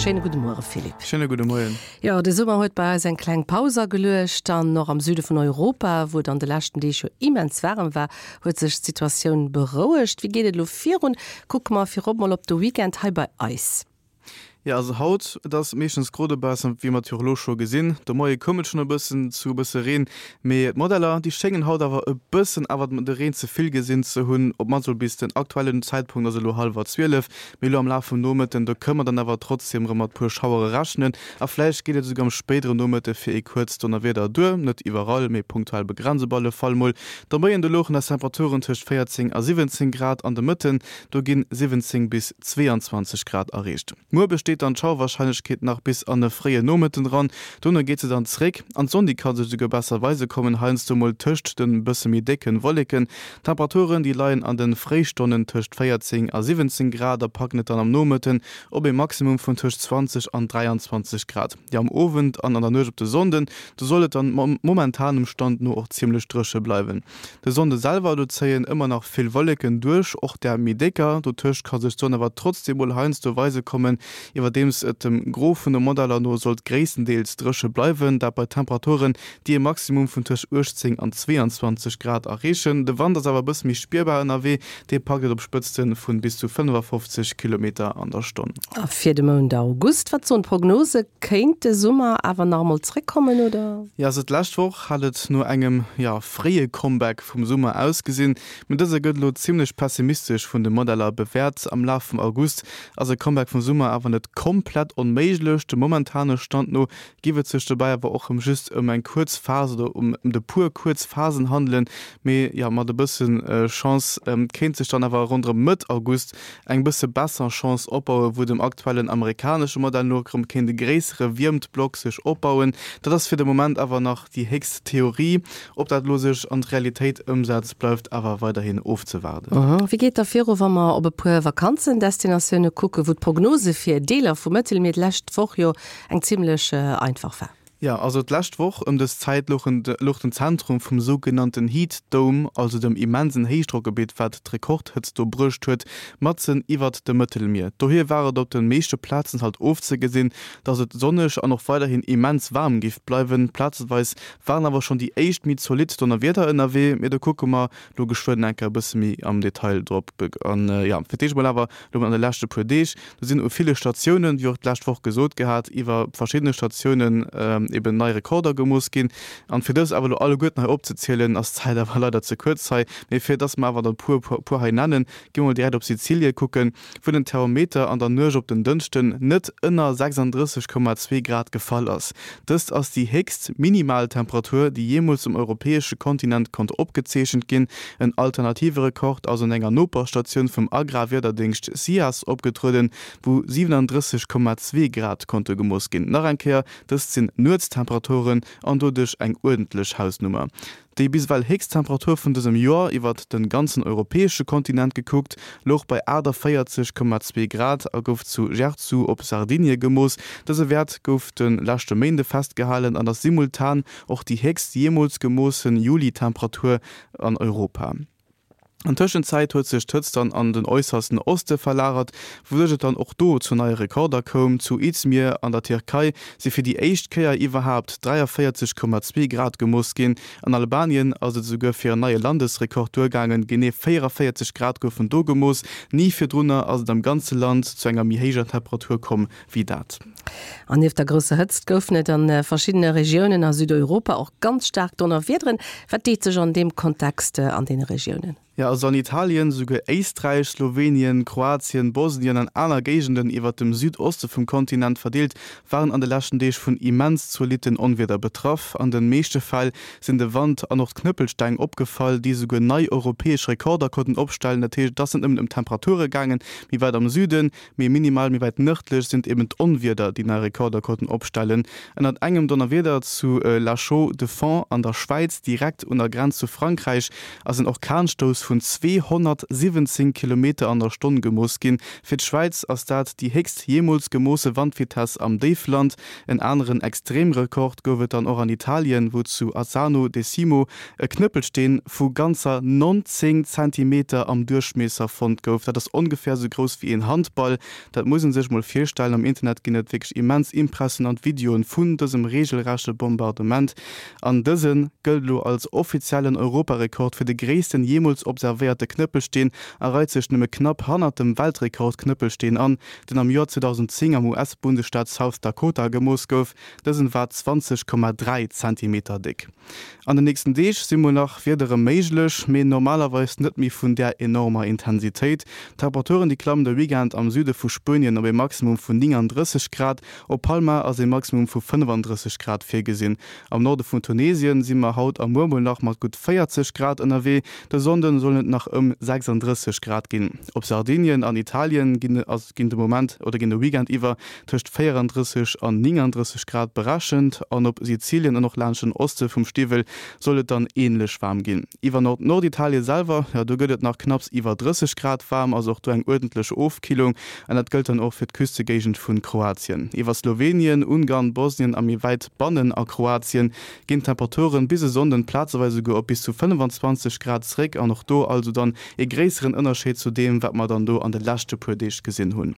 Schéine gudde Muere Philippe. Schéine gudde Moien. Jo, de Summer huet bei eis eng kleng Paus ageluecht an och am Süde vun Europa, wou et an de leschten Deeg jo immens waarem war, huet sech d'Situatioun berouegt. Wéi geet et elo virun? Kucke mer virop mol op de Weekend hei bei eis. Jo, also haut, et ass meeschtens gro dobaussen, wéi mer et jo och elo scho gesinn. De Moie koum et schonn e bëssen zu e bësse Reen, mee d'Modeller, déi schéngen haut awer e bëssen awer de Reen ze vill gesinn ze hunn, op d'mannst mol bis den aktuellen Zäitpunkt, also elo hallwer 12. Mee elo am Laf vum Nomëtten, do kënne mer dann awer trotzdeem erëm mat puer Schauere rechnen a vläicht geet et esouguer am spéidere Nomëtte fir ee kuerzt Donnerwieder duer. Net iwwerall, mee punktuell begrenzt op alle Fall mol. De Moien, do louchen eis Temperaturen tëscht 14 a 17 Grad an de Mëtten do ginn 17 bis 22 Grad erreecht. Muer besteet dann d'Schauerwarscheinlechkeet nach bis an e fréie Nomëtten eran, dono geet se dann zréck an d'Sonn déi ka sech esouguer besser weise kommen, heiansdo mol tëscht de bësse méi décke Wolleken. D'Temperaturen déi leien an de Fréistonnen tëscht 14 a 17 Grad a packen et dann am Nomëtten op ee Maximum vun tëscht 20 an 23 Grad. Jo am Owend an an der Nuecht op de Sonnden, do soll et dann momentanem Stand no och zimmlech dréche bleiwen. De Sonnde selwer, do zéien ëmmer nach vill Wolleken duerch, och där méi décker. Dotëscht ka sech d'Sonn awer trotzdeem mol heiansdo weise kommen, iwwerdeems et dem Gros vun de Modeller no sollt gréisstendeels dréche bleiwen, dat bei Temperaturen, déi e Maximum vun tëscht 18 an 22 Grad erreechen. De Wand ass awer e bësse méi spierbar ënnerwee, dee packt et op Spëtzte vu bis zu 55 Kilometer an der Stonn. A fir de Mount August, wat soen d'Prognose? Kéint de Summer awer nach emol zréckkommen, oder? Jo, also d'lescht Woch hat et no engem, jo, fréie Comeback vum Summer ausgesinn, mee dëse gëtt elo zimmlech pessimistesch vun de Modeller bewäert. Am Laf vum August ass e Comeback vum Summer awer net komplett onméiglech. Dem momentane Stand no giff et sech dobäi awer och rëm just ëm eng kuerz Phas oder ëm de puer kuerz Phasen handelen, mee jo, mat e bësse Chance kéint sech dann awer ronderëm Mëtt August eng bësse besser Chance opbauen, wou dem aktuellen amerikanesche Modell no erëm kéint e gréissere Wiermtblock sech opbauen. Dat ass fir de Moment awer nach déi héchst Theorie. Ob dat elo sech an d'Realitéit ëmsetzt, bleift awer weiderhin ofzewaarden. Wéi geet da viru, wa mer op e puer Vakanzendestinatioune kucken, wou d'Prognose fir Deeler vum Mëttelmier d'lescht Woch jo eng zimmlech einfach war? Jo, also d'lescht Woch ëm dës Zäit louch den Zentrum vum sougenannten Heat Dome, also dem immensen Héichdrockgebitt, wat d'Rekordhëtzt do bruecht huet, matzen iwwert dem Mëttelmier. Dohier war et op de meeschte Plazen halt ofzegesinn, dass et sonneg an och weiderhin immens waarm giff bleiwen. Plazeweis waren awer schonn déi éischt méi zolidd Donnerwieder ënnerwee, mee do kucke mer lo geschwënn eng Kéier e bësse méi am Detail drop. An jo, fir d'éischt mol awer lo an de leschte puer Deeg, do sinn u ville Statiounen, wéi och d'lescht Woch gesot gehat, iwwer verschiddene Statiounen eben nei Rekorder gemooss ginn. An fir dës awer lo alleguerten hei opzezielen, ass d'Zäit awer leider ze kuerz hei. Mee fir dass mer awer der e puer puer hei nennen, gi mer mol direkt op Sizilie kucken, wou den Thermometer an der Nuecht op den Dënschden net ënner 36,2 Grad gefall ass. Dëst ass déi héchst Minimaltemperatur, déi jeemools um europäesche Kontinent konnt opgezeechent ginn. En alternative Rekord ass un enger Noperstatioun vum Agrarwiederdéngscht SIAS opgetrueden, wou 37,2 Grad konnte gemooss ginn. Nach eng Kéier, dëst sinn Nuetstemperaturen an doduerch eng uerdentlech Hausnummer. Déi bis ewell héchst Temperatur vun dësem Joer, iwwert de ganzen europäesche Kontinent gekuckt, louch bei 48,2 Grad a gouf zu Jerzu op Sardinie gemooss. Dëse Wäert gouf de leschte Méinde festgehalen an ass simultan och déi héchst jeemools gemoossen Juli-Temperatur an Europa. An Tëschenzäit huet sech d'Hëtzt dann an den äussersten Oste verlagert, wouduerch et dann och do zu neie Rekorder koum. Zu Izmir an der Tierkei si fir déi éischt Kéier iwwerhaapt 43,2 Grad gemooss ginn. An Albanien ass et esouguer fir en neie Landesrekord duergaangen, genee 44 Grad goufen do gemooss. Ni virdrunner ass et am ganze Land zu enger méi héijer Temperatur komm wéi dat. An nieft der grousser Hëtzt goufen et a verschiddene Regiounen a Südeuropa och ganz staark Donnerwiederen. Wat deet sech an deem Kontext an deene Regiounen? Jo, also an Italien, souguer Éisträich, Slowenien, Kroatien, Bosnien an aner Géigenden iwwert dem Südoste vum Kontinent verdeelt, waren an de leschten Deeg vun immens zolitten Onwieder betraff. An de meeschte Fäll sinn de Wand an och d'Knëppelsteng opgefall, déi souguer nei europäesch Rekorder konnten opstellen. Dat heescht, et ass net nëmmen ëm Temperature gaangen, méi wäit am Süden, Méi minimal, méi wäit nërdlech sinn et eben d'Onwieder, déi nei Rekorder konnten opstellen. Ënnert engem Donnerwieder zu La Chaux-de-Fonds an der Schwäiz, direkt un der Grenz zu Frankräich, ass en Orkanstouss. Wandvitess vun 217 Kilometer an der Stonn gemooss ginn. Fir d'Schwäiz ass dat déi héchst jeemools gemoosse Wandvitess am Déifland. En aneren Extremrekord gouf et dann och an Italien, wou zu Azzano Decimo e Knëppelsteen vu ganzer 19 Zentimeter am Duerchmiesser fonnt gouf. Dat ass ongeféier esou grouss wéi een Handball. Dat muss een sech mol virstellen. Am Internet ginn et wierklech immens impressionant Videoen vun dësem reegelrechte Bombardement. An dëse gëllt elo als offiziellen Europarekord fir de gréissten jeemools observéierte Knëppelsteen a reit sech nëmme knapp hannert dem Weltrekord-Knëppelsteen an, deen am Joer 2010 am US-Bundesstaat South Dakota gemooss gouf. Dësen war 20,3 Zentimeter déck. An den nächsten Deeg si mol nach Wiedere méiglech, mee normalerweis net méi vun där enormer Intensitéit. D'Temperaturen déi klammen de Weekend am Süde vu Spuenien op ee Maximum vun 39 Grad, op Palma ass ee Maximum vu 35 Grad virgesinn. Am Norde vun Tunesien si mer haut a muer mol nach mat gutt 40 Grad ënnerwee, de Sonnde sollen et nach ëm 36 Grad ginn. Op Sardinien an Italien ginn ginn de Moment oder ginn de Weekend iwwer tëscht 34 an 39 Grad berechent an op Sizilien an och laanscht den Oste vum Stiwwel soll et dann änlech waarm ginn. Iwwer Nord-Norditalien selwer, jo do gëtt et nach knapps iwwer 30 Grad waarm, also och do eng uerdentlech Ofkillung an dat gëllt dann och fir d'Küstegéigend vun Kroatien. Iwwer Slowenien, Ungarn, Bosnien a méi wäit bannen a Kroatien ginn d'Temperaturen bis e Sonnden plazeweis esouguer op bis zu 25 Grad zréck an och do also dann ee gréisseren Ënnerscheed zu deem wat mer dann do an de leschte puer Deeg gesinn hunn.